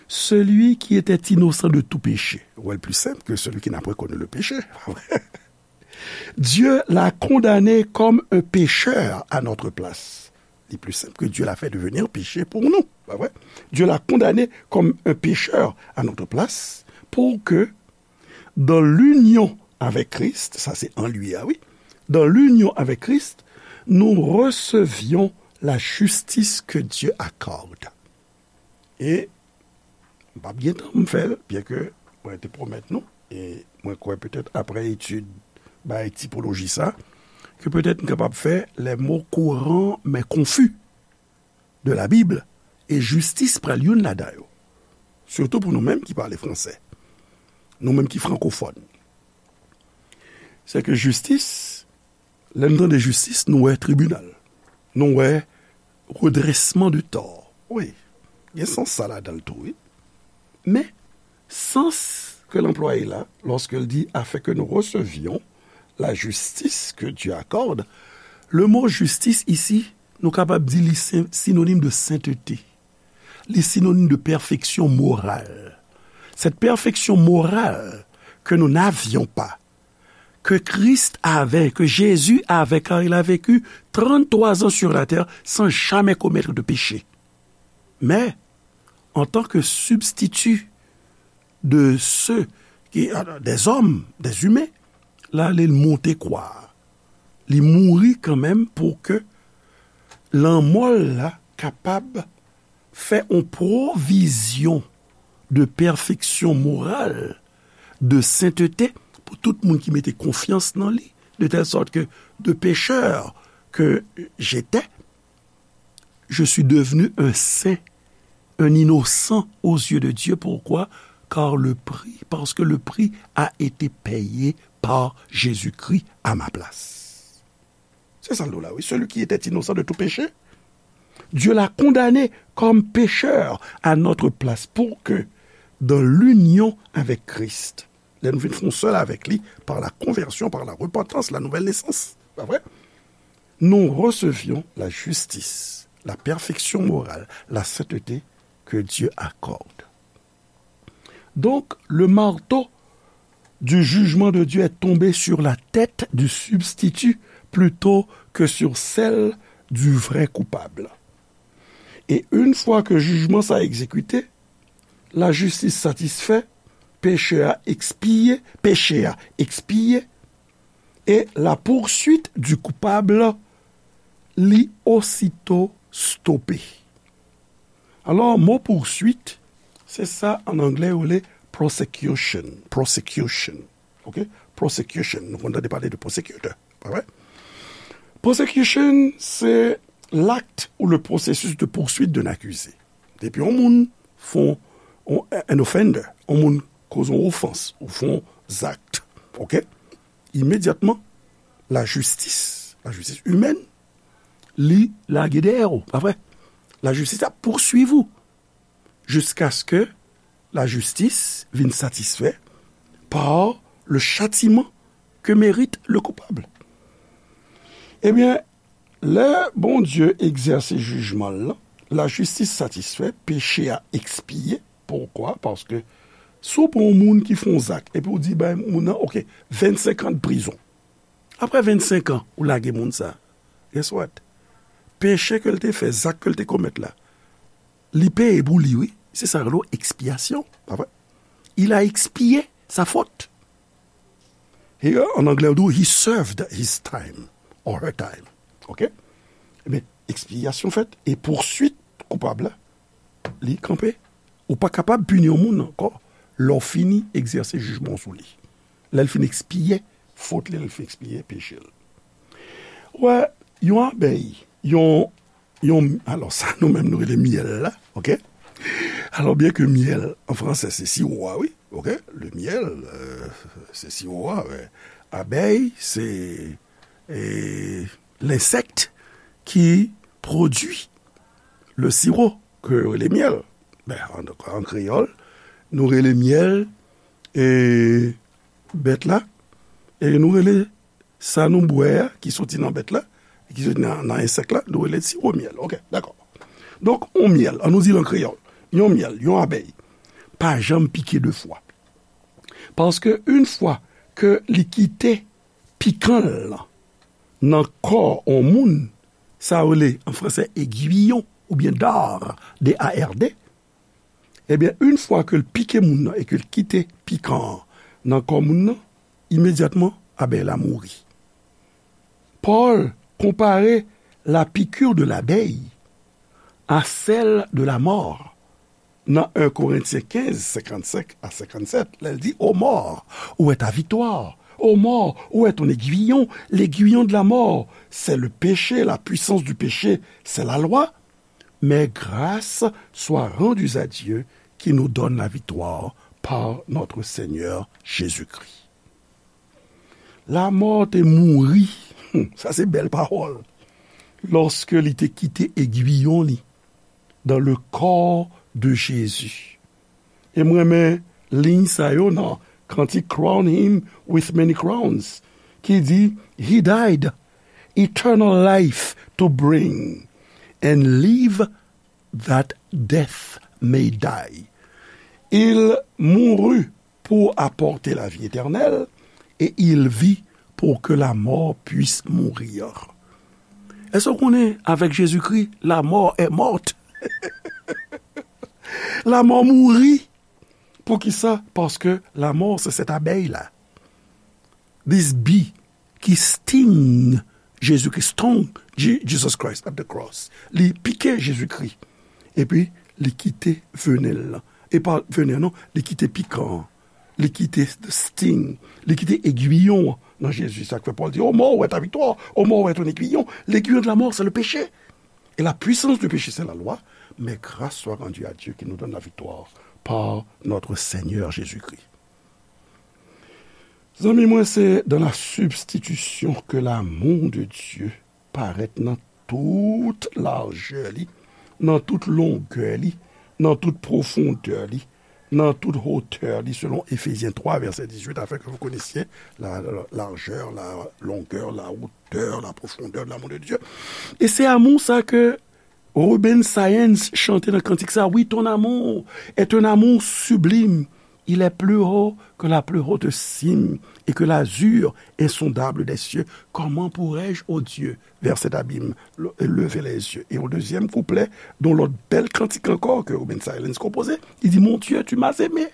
Celui qui était innocent de tout péché. Ou wè l pli senp ke celui qui n'a point connu le péché. Dieu l'a condamné comme un pécheur à notre place. Li pli senp ke Dieu l'a fait devenir péché pour nous. Pa vre? Dieu l'a condamné comme un pécheur à notre place pour que dans l'union avec Christ, sa se an li a, wi, dans l'union avec Christ, nous recevions la justice que Dieu accorde. E m p ap gen tan m fè l, byen ke mwen te pwomèt nou, e mwen kwè petèt aprè etid bay tipoloji sa, ke petèt m kapab fè les mots courants mais confus. de la Bible, e jistis pral youn ladan yo. Sitou pou nou menm ki pale fransè, nou menm ki frankofòn. Se ke jistis, lè n tande jistis, nou wè tribinal, nou wè redrèsman de tò. Wi, gen sans sa ladan l tou, wi. Men, sans ke l anplwaye la, lorsque il dit afin que nous recevions la justice que Dieu accorde, le mot justice ici, nou kapab di li sen- sinonime de sainteté. Li sinonime de perfection morale. Cette perfection morale que nous n'avions pas, que Christ avait, que Jésus avait, car il a vécu trente-trois ans sur la terre sans jamais commettre de péché. Mais, en tant que substitut de ceux qui, des hommes, des humains, la, li monte kwa. Li mouri kanmenm pou ke lanmò l la kapab fè yon pwovizyon de pèfeksyon moral, de sentete pou tout moun ki mete konfyans nan li, de telle sorte que de pécheur que j'étais, je suis devenu un saint, un innocent aux yeux de Dieu. Pourquoi ? Car le prix, parce que le prix a été payé par Jésus-Christ à ma place. Se sa l di w la, wi. Celui qui était innocent de tout péché, Dieu l'a condamné comme pécheur à notre place pour que, dans l'union avec Christ, lè nou vin fè yon sèl avèk li, par la conversion, par la repentance, la nouvelle naissance, pa vre? Nous recevions la justice, la perfection morale, la sainteté que Dieu accorde. Donc, le marteau du jugement de Dieu est tombé sur la tête du substitut plutôt que sur celle du vrai coupable. Et une fois que jijman sa egzekite, lajistis satisfè, peche a ekspiye, peche a ekspiye, e la poursuite du coupable li osito stope. Alò, mo poursuite, se sa an anglè yo rele prosecution. Prosecution. Ok? Prosecution. Nou konn tande pale de prosecutor, pa vre? Prosecution, se l'acte ou le processus de poursuite d'un accusé. Depi yon moun fè yon, an offender, yon moun koz yon ofans, ou fè yon zak, ok? Imedyatman, lajistis, lajistis imèn, li lage dèyè w, pa vre? Lajistis ap pouswiv ou jiskaske vin satisfè par le châtiment que mérite le coupable. Ebyen, lè Bondye egzèse jijman l lan, lajistis satisfè, peche a ekspiye. Poukwa? Paske si w pran yon moun ki fè yon zak, epi w di bay moun nan, ok, vennsenk an de prizon. Apre vennsenk an, ou lage moun sa. Guess what? Peche ke l te fè, zak ke l te komèt la, li peye pou li, wi. Se sa yo rele ekspyasyon, pa vre? Il a expié sa faute. He, an anglè, yo di, he served his time or her time. Ok? Ebyen, ekspyasyon fèt, e pousuit koupab la, li kanpe. Ou pa kapab pini yon moun ankò lè w fini egzèse jijman w sou li. Lè l fin ekspiye fot li, lè l fin ekspiye peche l. Wè, yon abèy, yon, yon, alò sa nou menm nou rele myèl la, ok? Alò, byen ke myèl, an fransè, se siwo a, wi, ok? Le myèl, euh, se siwo a, men abèy, se, e, lensèk ki pwodui le sirop, ke yo rele myèl. Ben, an, an kreyòl, nou rele myèl, e, bèt la, e nou rele sa nou bwè a, ki soti nan bèt la, ki soti nan, nan ensèk la, nou rele siwo myèl. Ok, dakò. Donk, yon myèl, an nou di l an kreyòl, yon myèl, yon abèy, pa janm pike de fwa. Paske yon fwa ke li kite pikan l lan nan kò yon moun, sa yo rele an fransè aiguillon oubyen dard, D A R D, ebyen, yon fwa ke l pike moun nan e ke l kite pikan an nan kò moun nan, imedyatman, abèy la mouri. Pòl konpare la piqûre de l'abeille à celle de la mort nan en Korentyen kenz, senkannsenk a senkannsèt, lè l di, ô mort, où est ta victoire? Ô mort, où est ton aiguillon? L'aiguillon de la mort, c'est le péché, la puissance du péché, c'est la loi. Mais grâce soit rendue à Dieu qui nous donne la victoire par notre Seigneur Jésus-Christ. Lamò te mouri, sa se bèl pawòl, lòske li te kite egwiyon li dans le corps de Jésus. E m renmen liy sa yo nan kantik Crown Him with Many Crowns, ki di, He died eternal life to bring, and live that death may die. Il mourut pour apporter la vie éternelle, et il vit pour que la mort puisse mourir. Èske w konnen, avec Jésus-Christ, la mort est morte? Lamò mouri. Poukisa? Paske lamò se cette abeille-là. This bee ki sting Jezikri, stung Je- Jesus Christ at the cross. Li pike Jezikri. Epi, li kite venen l lan. E pa venen an non, li kite pikan an. Li kite the sting. Li kite egwiyon an nan Jezi. Sa k fè Pòl di, ô mort, où est ta victoire? Ô mort, où est ton aiguillon? L'aiguillon de la mort, c'est le péché. Et la puissance du péché, c'est la loi. Mais grâce soit rendue à Dieu qui nous donne la victoire par notre Seigneur Jésus-Christ. Zanmi mwen, se dans la substitution que l'amour de Dieu parèt nan tout lajè li, nan tout longè li, nan tout pwofondè li, nan tout hotè li, selon Éphésiens trois, verset dix-huit, afin que vous connaissiez la, la largeur, la longueur, la hauteur, la profondeur de l'amour de Dieu. E se amou sa ke Reuben Science chante nan kantik sa, wi, ton amour est un amour sublime. Il est plus haut que la plus haute cime et que l'azur insondable des cieux. Comment pourrais-je, ô Dieu, vers cet abîme, le- lever les yeux? Et au deuxième couplet, dans l'autre belle cantique encore que Reuben Science composait, il dit, mon Dieu, tu m'as aimé.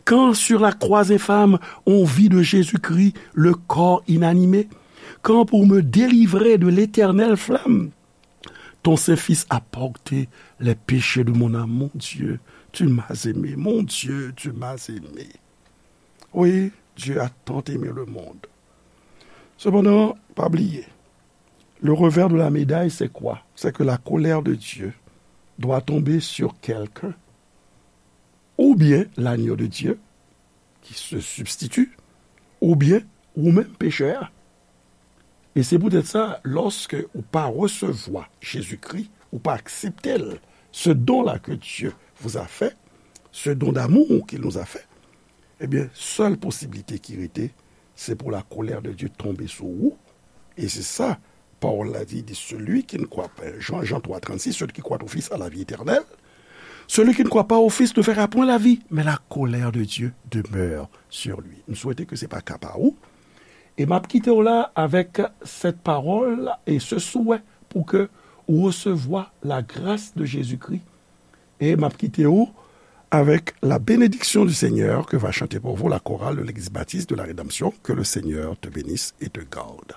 Quand sur la croix infâme on vit de Jésus-Christ le corps inanimé, quand pour me délivrer de l'éternelle flamme, ton Saint-Fils a porté les péchés de mon âme. Mon Dieu, tu m'as aimé. Mon Dieu, tu m'as aimé. Oui, Dieu a tant aimé le monde. Cependant, pa bliye, le revers de la médaille, c'est quoi? C'est que la colère de Dieu doit tomber sur quelqu'un, ou bien l'agneau de Dieu qui se substitue, ou bien ou menm pechè a. E se poutèt sa, lòske ou pa resevwa Jezikri, ou pa aksepte l, ce don-là que Dieu vous a fait, ce don d'amour qu'il nous a fait, ebyen, sèl posiblite ki rete, se pou la colère de Dieu tonbe sou ou. E se sa, pawòl la di, di, celui qui ne croit pas, Jean, Jean trois trente-six, celui qui croit au Fils a la vie éternelle, celui qui ne croit pas au Fils ne verra point la vie, mais la colère de Dieu demeure sur lui. M swete ke se pa ka pa ou. E m ap kite w la avèk cette parole et ce souhait pour que ou resevwa la grâce de Jésus-Christ. E m ap kite w avec la bénédiction du Seigneur que va chanter pour vous la chorale de l'Église baptiste de la Rédemption. Que le Seigneur te bénisse et te garde.